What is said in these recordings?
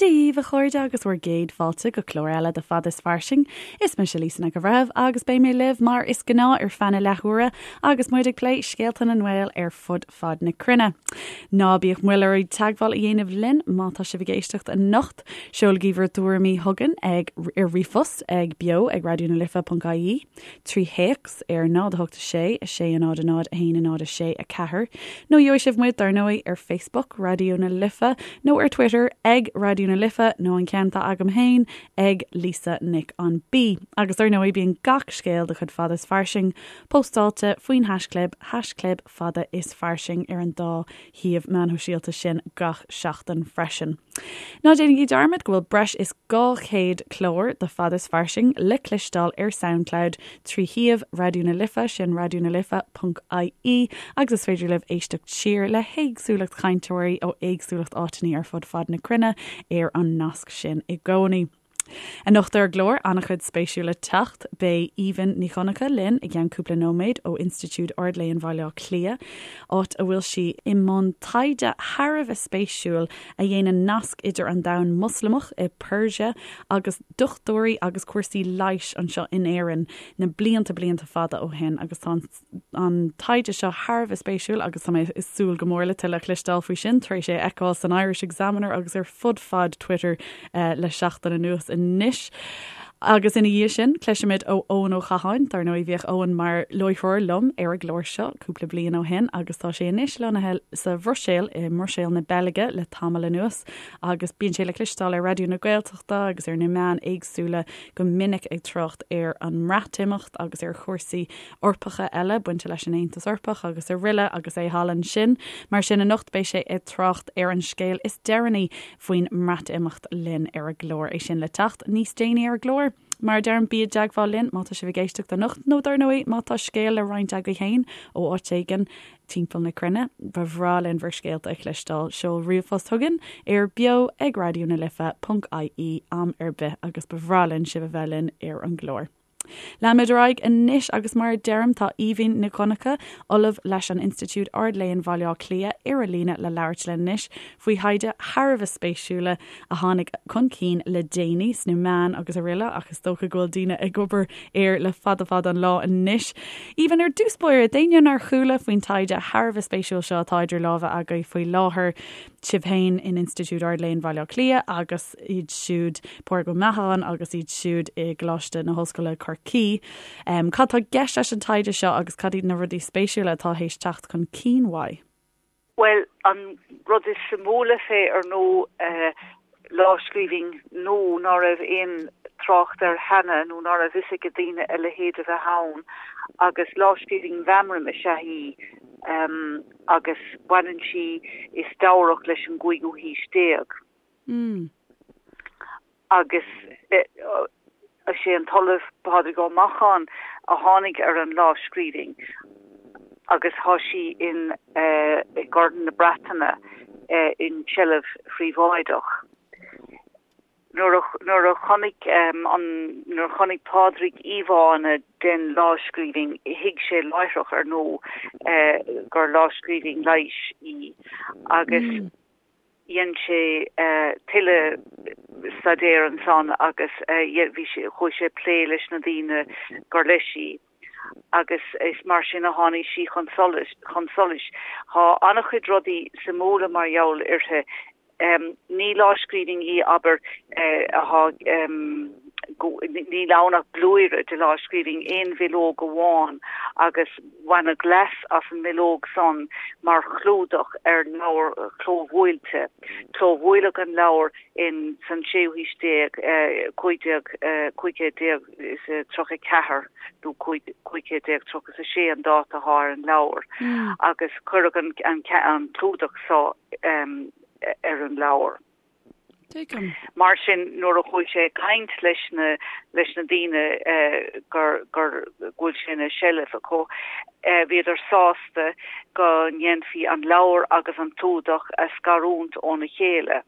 Dia dhaoibh, a chairde, agus bhur gcéad fáilte go clár eile de Fada is Fairsing. Is mise Lisa Nic an Bhreithimh agus beidh mé libh mar is gnáth ar feadh na leathuaire agus muid ag plé scéalta na nGael ar fud fad na cruinne. Ná bíodh moill oraibh teagmháil a dhéanamh linn má tá sibh ag éisteacht anocht. Seolaigí bhur dtuairimí chugainn ag ar ríomhphost ag beo ag raidionalife.ie. 3 théacs ar 0 8 6 6 0 0 1 0 6 4, nó gheobhaidh sibh muid, dar ndóigh, ar Facebook, Raidió na Life, nó ar Twitter, ag Raidió na Life, nó an ceann atá agam féin, ag Lisa Nic an B. Agus dar ndóigh, bíonn gach scéal de chuid Fada is Fairsing póstáilte faoin haischlib, haischlib Fada is Fairsing, ar an dá shuíomh meán shóisialta sin gach seachtain freisin. Ná déanaigí dearmad go bhfuil breis is 200 clár de Fada is Fairsing le cloisteáil ar Soundcloud trí shuíomh Raidió na Life, sin raidionalife.ie, agus is féidir libh éisteacht siar le héagsúlacht chainteoirí ó éagsúlacht áiteanna ar fud fad na cruinne ar an nasc sin i gcónaí. Anocht ar an gclár, an-chuid spéisiúil le teacht. Beidh Aoibhinn Ní Dhonncha linn i gceann cúpla nóiméad ó Institiúid Ard-Léinn Bhaile Átha Cliath, áit a bhfuil sí i mbun taighde thar a bheith spéisiúil a dhéanann nasc idir an domhan Moslamach i Persia agus dochtúirí agus cúrsaí leighis anseo in Éirinn na blianta blianta fada ó shin agus tá an an taighde seo thar a bheith spéisiúil agus tá mé ag súil go mór le tuilleadh a chloisteáil faoi sin tar éis é a fheiceáil san Irish Examiner agus ar fud fad Twitter le seachtain anuas anois. Agus ina dhiaidh sin, cloisfimid ó Eoin Ó Catháin. Dar ndóigh, bhíodh Eoin mar láithreoir liom ar an gclár seo cúpla bliain ó shin agus tá sé anois lonnaithe sa Bhruiséil, i mBruiséil na Beilge le tamall anuas agus bíonn sé le cloisteáil ar Raidió na Gaeltachta agus ar na meáin éagsúla go minic ag trácht ar an mBreatimeacht agus ar chúrsaí Eorpacha eile bainte leis an Aontas Eorpach agus araile agus é thall ansin. Mar sin anocht beidh sé ag trácht ar an scéal is deireanaí faoin mBreatimeacht linn ar an gclár. É sin le teacht níos déanaí ar an gclár. Mar a deirim, bí i dteagmháil linn má tá sibh ag éisteacht anocht nó dar ndóigh má tá scéal le roinnt agaibh féin ó áit éigin timpeall na cruinne, ba bhreá linn bhur scéalta a chloisteáil. Seol ríomhphost chugainn ar beo ag raidió na life ponc ie am ar bith agus ba bhreá linn sibh a bheith linn ar an gclár. Leanfaimid ar aghaidh anois agus mar a deirim tá Aoibhinn Nic Dhonncha, Ollamh leis an Institiúid Ard-Léinn Bhaile Átha Cliath ar an líne le labhairt linn anois faoi thaighde thar a bheith spéisiúla a tháinig chun cinn le déanaí sna meáin agus araile ach is dócha go bhfuil daoine ag obair air le fada fada an lá anois. Aoibhinn, ar dtús báire, d'éinne nár chuala faoin taighde thar a bheith spéisiúil seo atá idir lámha agaibh faoi láthair, sibh féin in Institiúid Ard-Léinn Bhaile Átha Cliath agus iad siúd, Pádraig Ó Meacháin agus iad siúd i gColáiste na hOllscoile Corcaigh. Cad tá i gceist leis an taighde seo agus cad iad na rudaí spéisiúla atá théis teacht chun cinn uaidh? Bhuel, an rud is suimiúla fé, ar ndóigh, lámhscríbhinn nua ná raibh aon trácht air cheana nó ná raibh fhios ag daoine a leithéid a bheith ann agus lámhscríbhinn mheamraim is ea í agus baineann sí is deabhrach leis an gcúigiú haois déag. Agus is é an tOllamh Pádraig Ó Macháin a tháinig ar an lámhscríbhinn agus tá sí in i gCorn na Breataine in seilbh phríobháideach. Nuair a nuair a chonaic an nuair a chonaic Pádraig íomhánna den lámhscríbhinn thuig sé láithreach ar ndóigh gur lámhscríbhinn leighis í agus Dhein sé tuilleadh staidéir ansan agus bhí sé, chuaigh sé ag plé leis na daoine gur leis í agus is mar sin a tháinig sí chun solais, chun solais. Tá an-chuid rudaí suimiúla mar gheall uirthi. Ní lámhscríbhinn í, abair, atá, níl ann ach blúire de lámhscríbhinn, aon bhileog amháin agus baineadh leas as an mbileog san mar chlúdach ar leabhar clóbhuailte. Clóbhuaileadh an leabhar in san séú haois déag, 1534 nó 1536 an dáta atá ar an leabhar, agus cuireadh an clúdach so ar an leabhar. Tuigim. Mar sin, nuair a chuaigh sé ag caint leis na, leis na daoine gur, gur, go bhfuil sé ina seilbh acu, bhíodar sásta go ndéanfaí an leabhar agus an clúdach a scarúint óna chéile.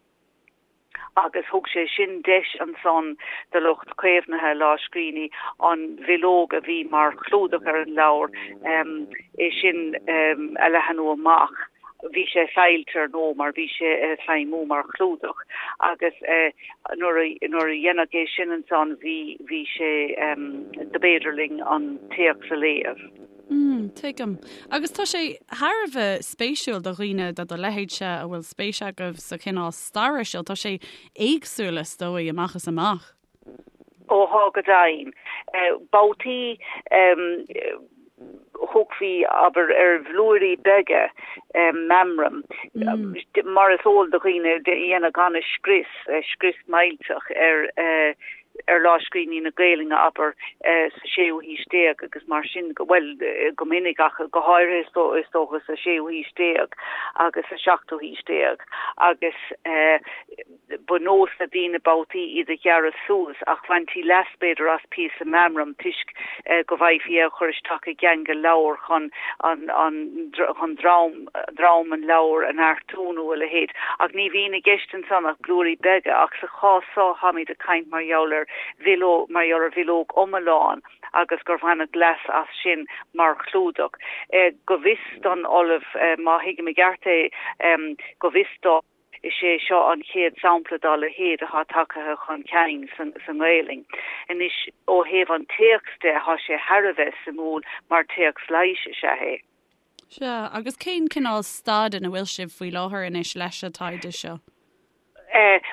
Agus thug sé sin deis ansan do lucht caomhnaithe lámhscríbhinní an bhileog a bhí mar chlúdach ar an leabhar, é sin a leathanú amach. Bhí sé saillte ar ndóigh mar bhí sé ag feidhmiú mar chlúdach agus nuair a nuair a deineadh é sin ansan bhí bhí sé dob fhéidir linn an téacs a léamh. Mm, tuigim. Agus tá sé thar a bheith spéisiúil do dhaoine de do leithéidse a bhfuil spéis agaibh sa chineál staire seo. Tá sé éagsúil is dóigh amach is amach. Ó thá go deimhin. Babhtaí thugfaí, abair, ar bhlúirí beaga meamraim, mar is eol do dhaoine, deineadh an-scrios, scrios millteach ar ar lámhscríbhinní na Gaelainne, abair, sa séú haois déag agus mar sin, bhuel, go minic ach go háirithe is dócha sa séú haois déag agus sa seachtú haois déag agus Ba nós le daoine babhtaí iad a ghearradh suas ach bhaintí leas b'fhéidir as píosa meamraim toisc go bhfaighfí é a chur isteach i gceangal leabhair chun an chun drom drom an leabhair a neartú nó a leithéid. Ach ní bhíonn i gceist ansan ach blúirí beaga ach sa chás so táimid ag caint mar gheall ar bhileog mar gheall ar bhileog iomlán agus gur bhaineadh leas as sin mar chlúdach. Go bhfios don Ollamh, má thuigim i gceart é, go bhfios dó, Is é seo an chéad sampla dá leithéid atá tagtha chun cinn sa nGaelainn. Anois, ó thaobh an téacs de, tá sé thar a bheith suimiúil mar téacs leighis is ea é. Sea, agus cén cineál staid ina bhfuil sibh faoi láthair anois leis an taighde seo?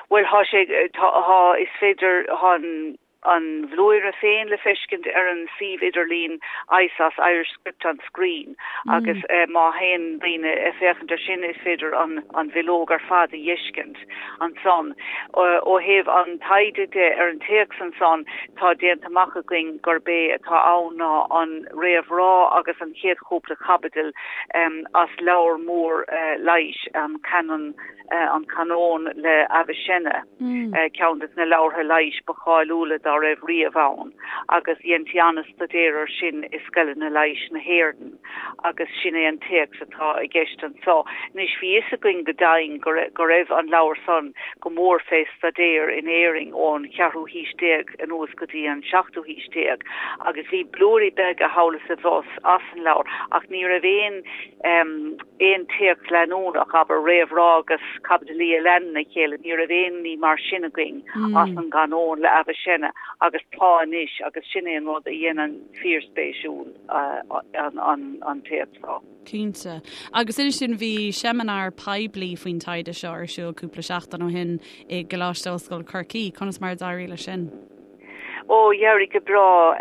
Bhuel, tá sé, tá, is féidir, tá an. an bhlúire féin le feiscint ar an suíomh idirlín ISOS, Irish Script on Screen, agus má théann daoine ag féachaint ar sin is féidir an bhileog ar fad a dh'fheiscint ansan. Ó thaobh an taighde de ar an téacs ansan, tá déanta amach againn gurb é atá ann ná an réamhrá agus an chéad chúpla caibidil as leabhar mór leighis, an Canon. An Canón le Avicenna, ceann de na leabhartha leighis ba cháiliúla dá raibh riamh ann, agus dheintí an-staidéar air sin i scoileanna leighis na hÉireann, agus sin é an téacs atá i gceist anso. Anois, bhí fhios againn go deimhin go go raibh an leabhar san go mór fé staidéar in Éirinn ón cheathrú haois déag anuas go dtí an seachtú haois déag, agus bhí blúirí beaga thall is abhus as an leabhar, ach ní raibh aon aon téacs leanúnach, abair, réamhrá agus caibidilí a leanann a chéile, ní raibh aon ní mar sin againn as an gCanón le Avicenna agus tá anois agus sin é an rud a dhéanann fíorspéisiúil an téacs seo. Cinnte. Agus inis dúinn, bhí seimineár poiblí faoin taighde seo ar siúl cúpla seachtain ó shin i gColáiste Ollscoile Chorcaí, conas mar a d'éirigh leis sin? Ó, d'éirigh go breá.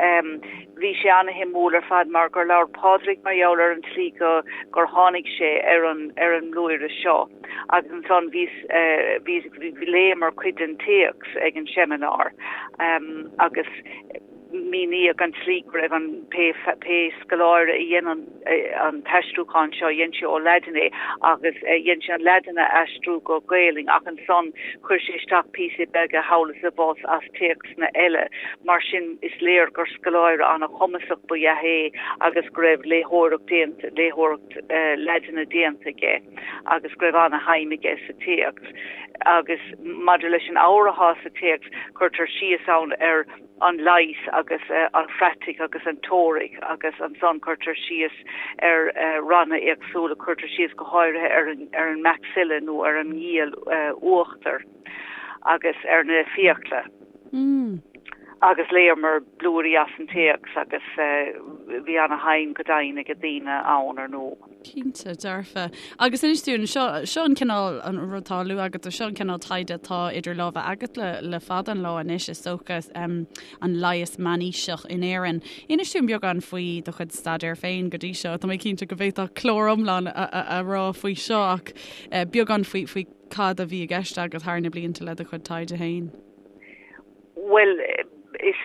Bhí sé ana-shuimiúil ar fad mar gur labhair Pádraig mar gheall ar an tslí go gur tháinig sé ar an ar an mblúire seo agus ansan bhíos bhí léamar cuid den téacs ag an seimineár agus míníodh an tslí go raibh an pé pé scoláire a dhein an an t-aistriúchán seo, dhein sé ó Laidin é agus dhein sé an Laidin a aistriú go Gaelainn ach ansan chuir sé isteach píosaí beaga thall is abhus as téacsanna eile. Mar sin is léir gur scoláire an-chumasach ba ea é agus go raibh léitheoireacht déanta, léitheoireacht Laidine déanta aige agus go raibh an-shuim aige sa téacs. Agus maidir leis an ábhar atá sa téacs, cuirtear síos ann ar an leigheas agus an phraitic agus an teoiric agus ansan cuirtear síos ar ranna éagsúla, cuirtear síos go háirithe ar an ar an maxilla nó ar an ngiall uachtair agus ar na fiacla. Agus léamar blúirí as an téacs agus bhí ana-shuim go deimhin ag daoine ann ar ndóigh. Cinnte, dearfa. Agus inis dúinn, seo, seo an cineál, an rud atá á lua agat, seo an cineál taighde atá idir lámha agat le, le fada an lá anois, is dócha, um, an leigheas meánaoiseach in Éirinn. Inis dúinn beagán faoi do chuid staidéir féin go dtí seo. Tá mé cinnte go bhféadfá clár iomlán a, a, a rá faoi seo ach eh, beagán faoi, faoi cad a bhí i gceist agat thar na blianta le do chuid taighde féin. Bhuel, is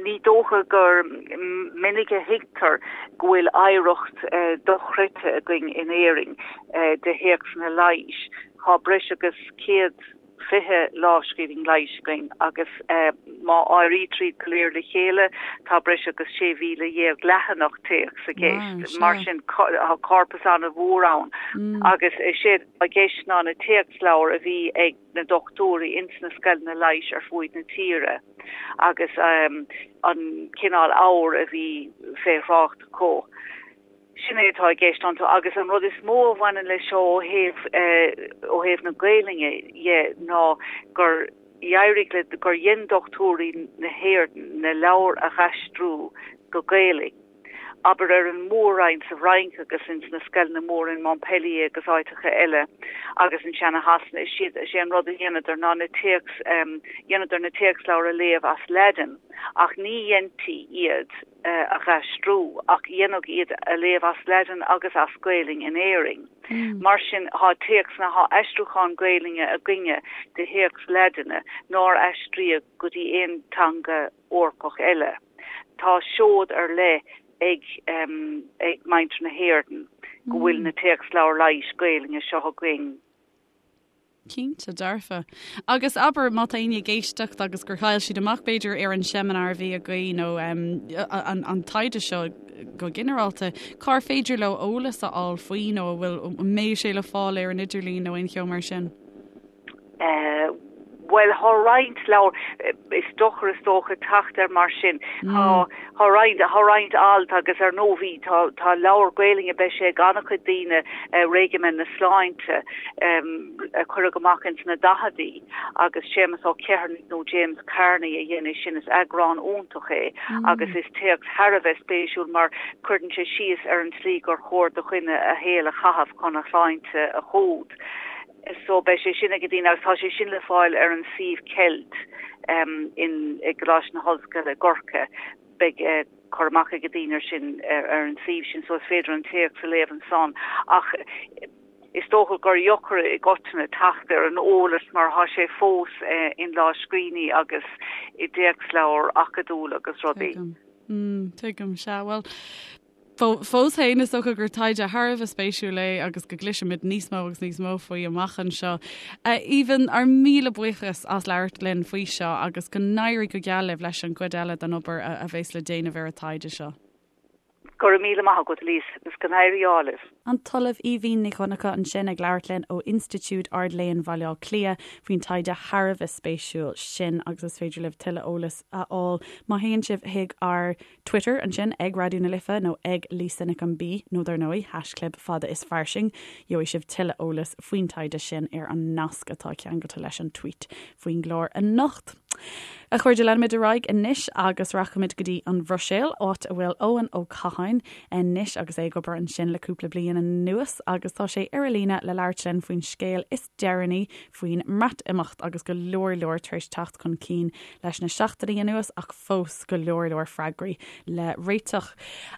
ní dócha gur minic a thuigtear go bhfuil oidhreacht dochreidte againn in Éirinn de théacsanna leighis. Tá breis agus 120 lámhscríbhinn leighis againn agus má áirítear iad go léir le chéile tá breis agus 16,000 leathanach téacs i gceist. Mar sin tá corpas an-mhór ann agus is é atá i gceist ná na téacsleabhair a bhí ag na dochtúirí ins na scoileanna leighis ar fuaid na tíre agus an cineál ábhair a bhí fé thrácht acu. Sin é atá i gceist iontu agus an rud is mó a bhaineann leis seo ó thaobh ó thaobh na Gaelainne dhe ná gur éirigh le, gur dhein dochtúirí na hÉireann na leabhair a dh'aistriú go Gaelainn. Abair ar an Mór-Roinn sa bhFrainc agus ins na scoileanna móra in Montpellier agus áiteacha eile agus ansin i Shasana, is iad, is é an rud a dheineadar ná na téacs, dheineadar na téacsleabhair a léamh as Laidin ach ní dheintí iad a dh'aistriú ach dheineadh iad a léamh as Laidin agus as Gaelainn in Éirinn. Mar sin thá téacsanna, thá aistriúchán Gaelainne againne de théacs Laidine nár aistríodh go dtí aon teanga Eorpach eile. Tá seod ar leith ag ag muintir na hÉireann go bhfuil na téacsleabhair leighis Gaelainne seo againn. Cinnte, dearfa. Agus abair, má tá éinne ag éisteacht agus gur chaill siad amach, b'fhéidir, ar an seimineár a bhí againn nó an taighde seo go ginearálta, cár féidir leo eolas a fháil faoi nó an bhfuil, an mbeidh sé le fáil ar an idirlíon nó aon cheo mar sin? Bhuel, thá roinnt leabhar, is deacair is dócha teacht air mar sin. Thá, thá roinnt, thá roinnt alt agus ar ndóigh bhí, tá, tá leabhar Gaelainne, beidh sé ag an-chuid daoine, Réigimen na Sláinte, a cuireadh amach ins na daicheadaí agus Séamus Ó Ceithearnaigh nó James Kearney a dhein é sin, is eagrán iontach é agus is téacs thar a bheith spéisiúil mar cuireann sé síos ar an tslí gur chóir do dhuine a shaol a chaitheamh chun a shláinte a chumhdach. So beidh sé sin ag daoine agus tá sé sin le fáil ar an suíomh Celt in i gColáiste na hOllscoile i gCorcaigh. Beidh cur amach ag daoine ar sin ar an suíomh sin so is féidir an téacs a léamh ansan. Ach is dócha gur dheacair i gcoitinne teacht ar an eolas mar thá sé fós in lámhscríbhinní agus i dtéacsleabhair acadúil agus rudaí. Tuigim. Tuigim, sea. Bhuel, Fós féin, is dócha gur taighde thar a bheith spéisiúil é agus go gcloisfimid níos mó agus níos mó faoi amach anseo. A Aoibhinn, ár míle buíochas as labhairt linn faoi seo agus go n-éirí go geal libh leis an gcuid eile den obair a bheas le déanamh ar an taighde seo. Go raibh míle maith agat, Lisa, agus go n-éirí ádh libh. An tOllamh Aoibhinn Ní Dhonncha ansin ag labhairt linn ó Institiúid Ard-Léinn Bhaile Átha Cliath faoin taighde thar a bheith spéisiúil sin agus is féidir libh tuilleadh eolais a fháil má théann sibh chuig ár Twitter ansin ag Raidió na Life nó ag Lisa Nic an B nó dar ndóigh haischlib fada is fairsing. Gheobhaidh sibh tuilleadh eolais faoin taighde sin ar an nasc atá ceangailte leis an tweet faoin gclár anocht. A chairde, leanfaimid ar aghaidh anois agus rachaimid go dtí an Bhruiséil, áit a bhfuil Eoin Ó Catháin anois agus é ag obair ansin le cúpla bliain anuas agus tá sé ar an líne le labhairt linn faoin scéal is deireanaí faoin mBreatimeacht agus go leor leor tar éis teacht chun cinn leis na seachtainí anuas ach fós go leor leor freagraí le réiteach.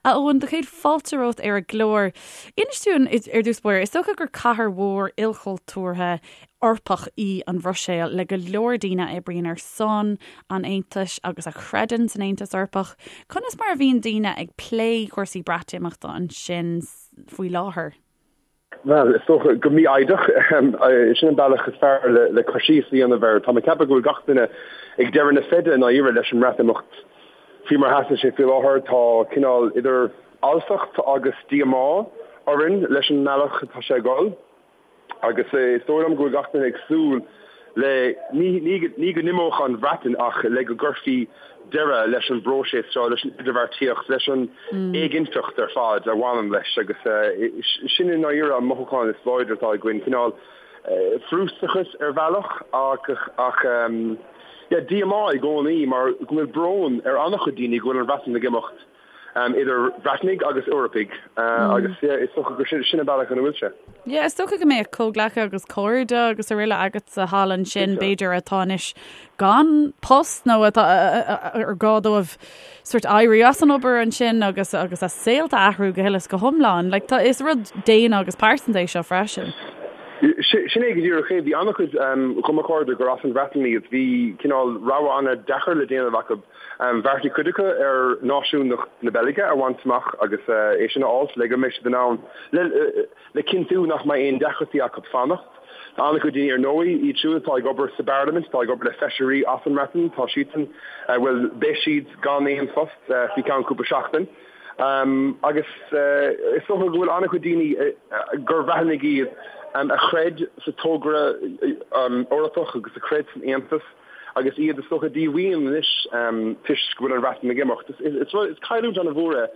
A Eoin, do chéad fáilte romhat ar an gclár. Inis dúinn ar dtús báire, is dócha gur cathair mhór ilchultúrtha Eorpach í an Bhruiséil le go leor daoine a oibríonn ar son an Aontais agus a chreideann san Aontas Eorpach. Conas mar a bhíonn daoine ag plé cúrsaí Breatimeachta ansin faoi láthair? Bhuel, is dócha go mífhoighdeach. Sin an bealach is fearr le cur síos a dhéanamh air. Tá mé ag ceapadh go bhfuil gach duine ag deireadh na feide i ndáiríre leis an mBreatimeacht faoi mar a sheasann sé faoi láthair. Tá cineál idir fhalsacht agus díomá orainn leis an mbealach atá sé ag dul. Agus is dóigh liom go bhfuil gach duine ag súil le, ní go n-imeodh an Bhreatain ach le go gcuirfí deireadh leis an bpróiseas seo, leis an idirbheartaíocht, leis an éiginnteacht ar fad a bhaineann leis agus sin i ndáiríre an mothúchán is láidre atá againn, cineál frustrachas ar bhealach ach yeah díomá i gcónaí mar go bhfuil brón ar an-chuid daoine go bhfuil an Bhreatain ag imeacht. idir Bhreatnaigh agus Eorpaigh agus is dócha gur sin an bealach ina bhfuil sé. Yeah, is dócha go mbeadh comhghleacaithe agus cairde agus araile agatsa thall ansin, b'fhéidir, atá anois gan post nó atá ar gá dóibh sort éirí as an obair ansin agus agus a saolta a athrú go huile is go hiomlán. Like, tá, is rud daonna agus pearsanta é seo freisin. Sin é go díreach é. Bhí an-chuid de mo chairde gur as an Bhreatain iad. Bhí cineál rogha an-deacair le déanamh acu. Bheartaigh cuid acu ar náisiúnacht na Beilge a bhaint amach agus é sin a fháilt le go mbeidh siad in ann le cinntiú nach mbeidh aon deacrachtaí acu fanacht. Tá an-chuid daoine ar ndóigh, iad siúd atá ag obair sa bParlaimint, atá ag obair le feisirí as an mBreatain, tá siadsan, bhuel, beidh siad gan aon phost faoi cheann cúpla seachtain. Agus is dócha go bhfuil an-chuid daoine gur Bhreatnaigh iad a chreid sa togra Eorpach agus a chreid san Aontas, agus iad is dócha díomhaoin anois toisc go bhfuil an Bhreatain ag imeacht. Is cailliúint an-mhór é.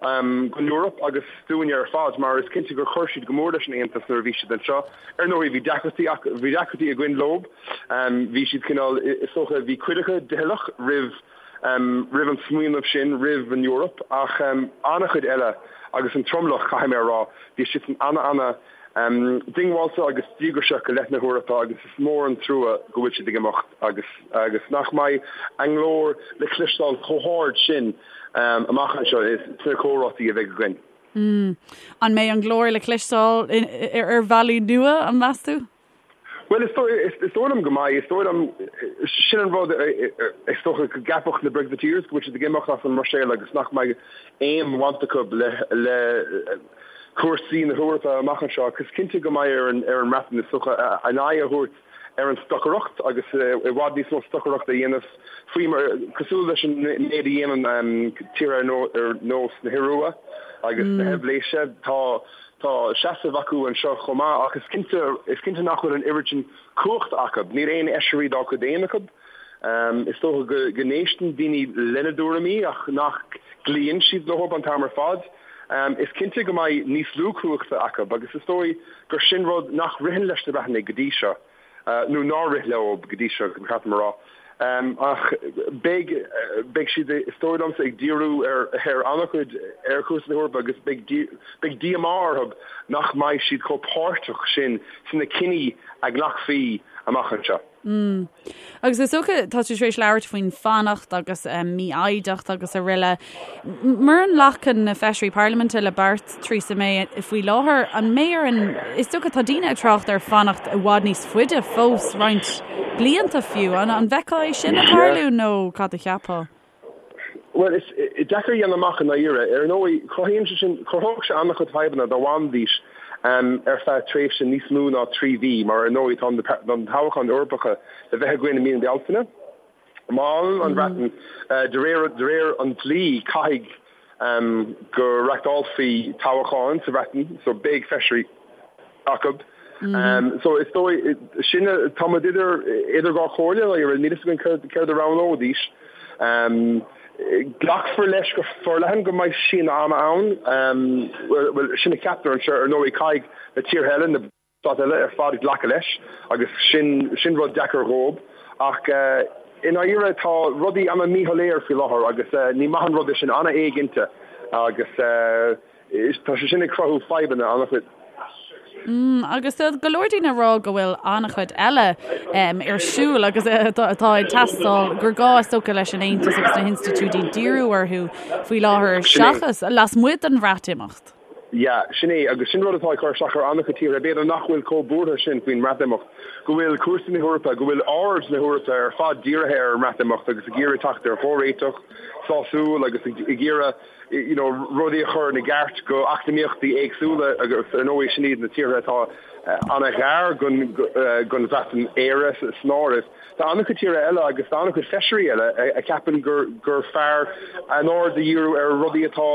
Don Eoraip agus dúinne ar fad, mar is cinnte gur chuir siad go mór leis an Aontas nuair a bhí siad anseo. Ar ndóigh, bhí deacrachtaí acu, bhí deacrachtaí againn leo. Bhí siad cineál, is dócha, bhí cuid acu doicheallach roimh, roimh an smaoineamh sin, roimh an Eoraip, ach an-chuid eile, agus an tromlach, caithfidh mé a rá, bhí siadsan ana-ana diongbháilte agus díograiseach i leith na hEorpa agus is mór an trua go bhfuil siad ag imeacht agus agus nach mbeidh a nglór le cloisteáil chomh hard sin amach anseo sna comhráití a bheidh againn. An mbeidh an glór le cloisteáil ar bhealaí nua, an meas tú? Bhuel, is dóigh liom go mbeidh. Is dóigh liom, sin an rud, is dócha go gceapfadh na Brexiteers go bhfuil siad ag imeacht as an mBruiséil agus nach mbeidh aon bhaint acu le cúrsaí na hEorpa amach anseo ach is cinnte go mbeidh ar an mBreatain, is dócha, a n-aghaidh a thabhairt ar an stocaireacht agus i bhfad níos mó stocaireachta a dhéanamh faoi mar, cosúil leis an méid a dhéanann tíortha ar nós na hIorua agus na hEilvéise. Tá. Tá seasamh acu anseo chomh maith ach is cinnte, is cinnte nach bhfuil an oiread sin cumhachta acu. Níl aon fheisirí dá gcuid féin acu. Is dócha go, go n-éisteann daoine lena dtuairimí ach nach gcloíonn siad leo an t-am ar fad. Is cinnte go mbeidh níos lú cumhachta acu agus is dóigh gur sin rud nach ritheann leis na Breatanaigh go dtí seo. nó nár rith leo go dtí seo, ba cheart dom a rá. Ach beidh, beidh siad, is dóigh liomsa, ag díriú ar, ar an-chuid ar chúrsaí na hEorpa agus beidh, beidh díomá orthu nach mbeidh siad chomh páirteach sin sna cinní a ghlacfaí amach anseo. Mm. Agus is dócha, tá tú tar éis labhairt faoin fanacht agus mífhoighdeacht agus araile. Mura nglacann na feisirí parlaiminte le beart Theresa May faoi láthair, an mbeidh ar an, is dócha tá daoine ag trácht ar fanacht i bhfad níos faide fós, roinnt blianta fiú. An an bhfeicfeá é sin ag tarlú nó cad a cheapfá? Bhuel, is deacair a dhéanamh amach i ndáiríre. Ar ndóigh, cruthaíonn sé sin, chruthódh sé an-chuid fadhbanna dá bhfanfaidís ar feadh tréimhse níos mó ná 3 mhí, mar ar ndóigh tá na toghcháin Eorpacha le bheith againn i mí na Bealtaine. Má fhanann an Bhreatain, de réir de réir an dlí, caithfidh go reachtálfaí toghcháin sa Bhreatain, so beidh feisirí acu. So is dóigh, sin, tá muid idir idir dhá chomhairle, níl a fhios againn céard céard a roghnóidís. Glacfar leis go forleathan go mbeidh síneadh ama ann, bhuel, sin a cheaptar anseo, ar ndóigh caithfidh na tíortha eile, na. Stáit eile ar fad glacadh leis agus sin sin rud deacair dhóib. Ach i ndáiríre tá rudaí ana míshoiléir faoi láthair agus ní maith an rud é sin, ana éiginnte agus tá sé sin ag cruthú fadhbanna ana-chuid. Mm, agus tá go leor daoine ag rá go bhfuil an-chuid eile ar siúl agus atá ag teastáil gur gá is dócha leis an Aontas agus na hinstitiúidí díriú orthu faoi láthair seachas lasmuigh den Bhreatimeacht. Yeah, sin é, agus sin rud atá ag cur isteach ar an-chuid tíortha, b'fhéidir nach bhfuil chomh buartha sin faoin mBreatimeacht, go bhfuil cúrsaí na hEorpa, go bhfuil aird na hEorpa ar fad dírithe ar an mBreatimeacht agus ag iarraidh teacht ar chomhréiteach sásúil agus ag iarraidh you know rudaí a chur ina gceart go eacnamaíochtaí éagsúla agus ar ndóigh sin iad na tíortha atá ana-ghar don don Bhreatain, Éire san áireamh. Tá an-chuid tíortha eile agus tá an-chuid feisirí eile a cheapann gur gur fearr a n-aird a dhíriú ar rudaí atá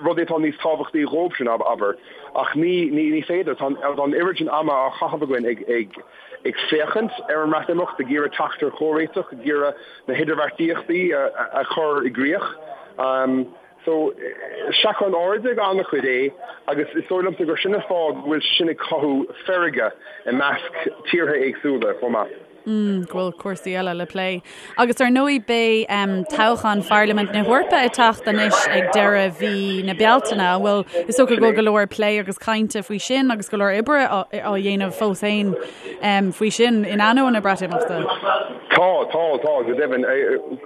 rudaí atá níos tábhachtaí dhóibhsean, abair. Ach ní ní ní féidir. Tá an oiread sin ama á chaitheamh againn ag ag ag féachaint ar an mBreatimeacht, ag iarraidh teacht ar chomhréiteach, ag iarraidh na hidirbheartaíochtaí a a chur i gcrích. So, seachrán airde ag an-chuid é agus is dóigh liomsa gur sin an fáth go bhfuil sé sin ag cothú feirge i measc tíortha éagsúla chomh maith. Mm, go bhfuil cúrsaí eile le plé. Agus ar ndóigh beidh um, toghchán Pharlaimint na hEorpa ag teacht anois ag deireadh mhí na Bealtaine. An bhfuil is dócha go bhfuil go leor plé agus cainte faoi sin agus go leor oibre á, á dhéanamh fós féin faoi sin in ainneoin na Breatimeachta. Tá, tá, tá, go deimhin.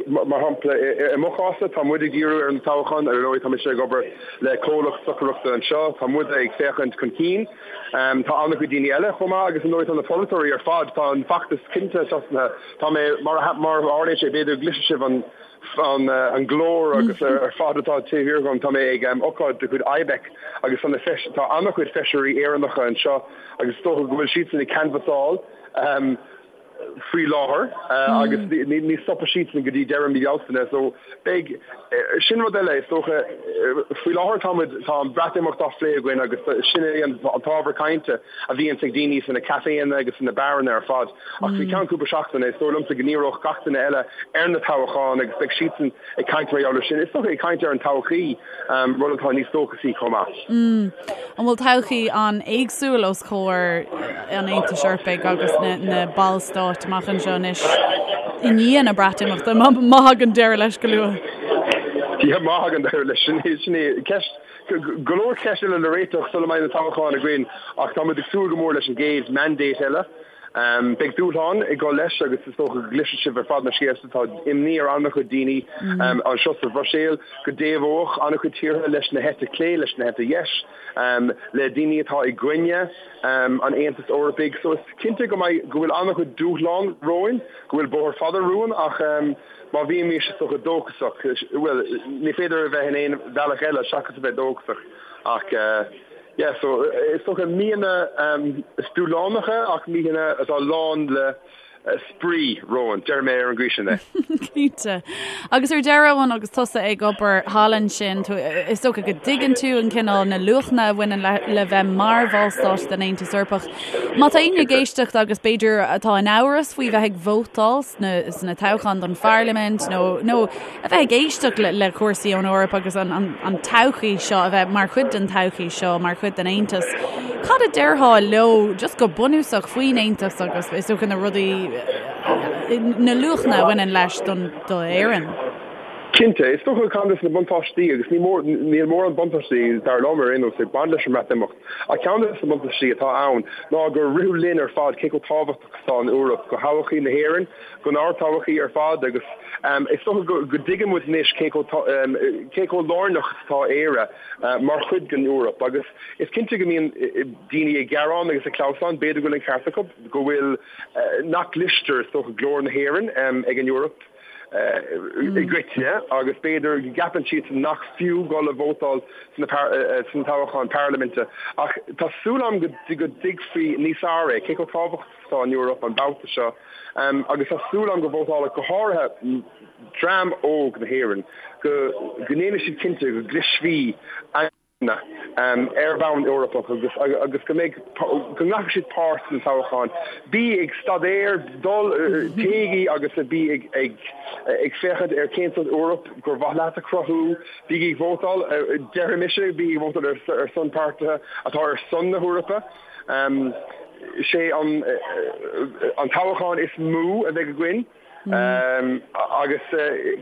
Mar shampla, i mo chás-sa, tá muid ag díriú ar an toghchán, ar ndóigh tá mise ag obair le comhlacht stocaireachta anseo, tá muid ag féachaint chun cinn. Tá an-chuid daoine eile chomh maith agus ar ndóigh tá na polaiteoirí ar fad, tá an feachtas cinnte tosnaithe. Tá mé, mar a tharlaíonn sé, b'fhéidir go gcloisfidh sibh an an glór agus ar fad atá taobh thiar dhom, tá mé ag ócáid de chuid IBEC agus tá na tá an-chuid feisirí Éireannacha anseo agus is dócha go bhfuil siadsan ag canbhasáil. faoi láthair agus ní stopfaidh siadsan go dtí deireadh mí Bealtaine so beidh, sin rud eile is dócha, faoi láthair tá muid, tá an Breatimeacht á phlé againn agus sin é an t-ábhar cainte a bhíonns ag daoine sna caiféanna agus sna beáranna ar fad ach faoi cheann cúpla seachtaine is dóigh liomsa go ndíreoidh gach duine eile ar na toghcháin agus beidh siadsan ag caint mar gheall air sin. Is dócha ag caint ar an todhchaí, rud atá níos dóchasaí chomh maith. An bhfuil todhchaí an-éagsúil os comhair an Aontais Eorpaigh agus na ballstáit amach anseo anois i ndiaidh na Breatimeachta, má thagann deireadh leis go luath? Yeah, má thagann deireadh leis, sin é, sin é ceist, go leor ceist eile le réiteach sula mbeidh na toghcháin againn ach tá muid ag súil go mór leis an gcéad mandate eile. Beidh dúshlán ag dul leis agus is dócha go gcloisfidh sibh ar fad na scéalta. Tá imní ar an-chuid daoine anseo sa Bhruiséil go dtaobhódh an-chuid tíortha leis na heite clé, leis na heite dheis, le daoine atá i gcoinne an Aontais Eorpaigh. So is cinnte go mbeidh, go bhfuil an-chuid dúshlán romhainn, go bhfuil bóthar fada romhainn ach má bhímís is dócha dóchasach, bhuel, ní féidir a bheith in aon bhealach eile seachas a bheith dóchasach ach. Yeah, so is dócha míonna dúshlánacha ach míonna atá lán le spraoi romhainn, déarfaidh mé ar an gcaoi sin é. Cinnte. Agus ar deireadh, Eoin, agus tusa ag obair thall ansin, is dócha go dtuigeann tú an cineál na luachanna a bhaineann le, le bheith mar bhallstát den Aontas Eorpach. Má tá éinne ag éisteacht agus b'fhéidir atá in amhras faoi bheith ag vótáil sna, sna toghcháin don pharlaimint nó, nó a bheith ag éisteacht le cúrsaí ón Eoraip agus an todhchaí seo, a bheith mar chuid den todhchaí seo, mar chuid den Aontas. Cad a déarfá leo just go bunúsach faoin Aontas agus is dócha na rudaí, na luachanna a bhaineann leis don do Éirinn? Cinnte, is dócha ceann de na buntáistí agus ní mór, níl mórán buntáistí dar liom ar aon nós ag baint leis an mBreatimeacht ach ceann de na buntáistí atá ann ná gur ritheadh linn ar fad cé chomh tábhachtach is atá an Eoraip do thodhchaí na hÉireann, don ár dtodhchaí ar fad agus is dócha go dtuigeann muid anois cé cé chomh lárnach is atá Éire mar chuid den Eoraip agus is cinnte go mbíonn daoine ag gearán agus ag clamhsán, b'fhéidir go bhfuil an ceart acu, go bhfuil, nach gcloistear is dócha glór na hÉireann ag an Eoraip i gcoitinne agus b'fhéidir go gceapann siad nach fiú dul a vótáil sna toghcháin parlaiminte ach tá súil agam go dtuigfí níos fearr é, cé chomh tábhachtach atá an Eoraip an babhta seo agus tá súil agam go vótálfaidh go háirithe dream óg na hÉireann go ndéanfaidh siad cinnte go gcloisfí a ar bhonn Eorpach agus agus go mbeidh go nglacfaidh siad páirt sna toghcháin. Bí ag staidéar, dul, téigí agus bí ag ag ag féachaint ar cén sórt Eoraip gur mhaith leat a chruthú, bígí ag vótáil, déarfaidh mise, bígí ag vótáil ar ar son páirtithe atá ar son na hEorpa. Sé an toghchán is mó a bheidh againn agus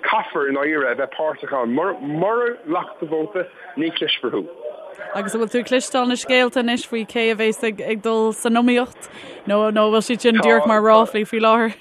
caithfear i ndáiríre a bheith páirteach ann. Mura nglacann tú vóta, ní chloisfear thú. Agus an bhfuil tú ag cloisteáil na scéalta anois faoi cé a bheas ag dul san iomaíocht nó nó an bhfuil siad sin díreach mar ráflaí faoi láthair?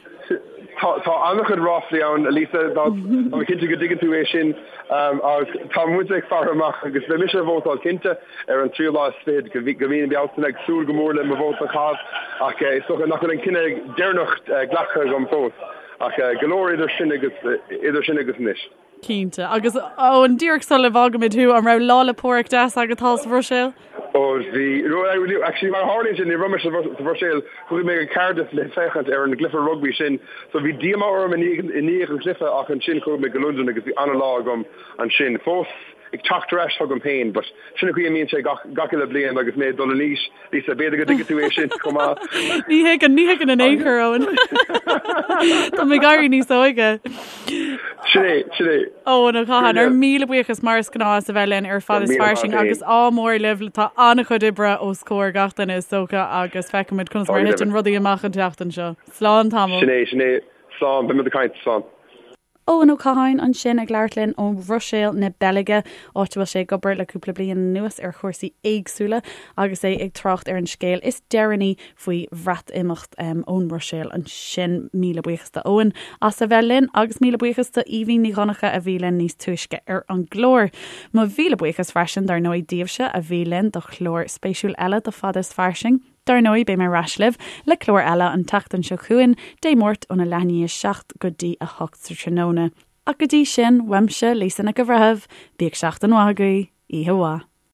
Tá an-chuid ráflaí ann, Lisa, tá mé cinnte go dtuigeann tú é sin ach tá muid ag faire amach agus beidh mise ag vótáil cinnte. Ar an tríú lá is fichead de mhí na Bealtaine, ag súil go mór le mo vóta a chaitheamh, ach is dócha nach bhfuil an cinneadh deireanach glactha agam fós. Ach go leor idir sin agus idir sin agus anois. Cinnte. Agus Eoin, díreach sula bhfágaimid thú, an raibh Lá 'le Pádraig deas agat thall sa Bhruiséil? Ó bhí. Actually, mar a tharlaíonn sé, ní raibh mé sa Bhruiséil, chuaigh mé go Cardiff le féachaint ar an gcluiche rugbaí sin. So bhí díomá orm i ndiaidh an chluiche ach ansin chuaigh mé go Londain agus bhí an-lá agam ansin. Fós ag teacht ar ais chugam féin, but sin an chaoi a mbíonn sé gach, gach uile bliain agus mé ag dul in aois, Lisa, b'fhéidir go dtuigfidh tú é sin chomh maith. Ní thuigeann, ní thuigeann in aon chor, Eoin. Tá mé ag éirí níos óige. Sin é, sin é. Eoin Ó Catháin, ár míle buíochas mar is gnáth as a bheith linn ar Fad is Fairsing agus ádh mór libh, tá an-chuid oibre os comhair gach duine is dócha agus feicfimid conas mar a thiteann rudaí amach an tseachtain seo. Slán tamall. Sin é, sin é. Slán, beimid ag caint, slán. Eoin Ó Catháin ansin ag labhairt linn ó Bhruiséil na Beilge, áit a bhfuil sé ag obair le cúpla bliain anuas ar chúrsaí éagsúla agus é ag trácht ar an scéal is deireanaí faoi Bhreatimeacht ón mBruiséil ansin. Míle buíochas do Eoin as a bheith linn agus míle buíochas do Aoibhín Ní Dhonncha a bhí linn níos túisce ar an gclár. Mo mhíle buíochas freisin dar ndóigh daoibhse a bhí linn do chlár spéisiúil eile de Fada is Fairsing. Dar ndóigh, beidh mé ar ais libh le clár eile an tseachtain seo chugainn, Dé Máirt óna leath i ndiaidh 7 go dtí 8 sa tráthnóna. Ach go dtí sin, uaimse, Lisa Nic an Bhreithimh, bíodh seachtain mhaith agaibh, oíche mhaith.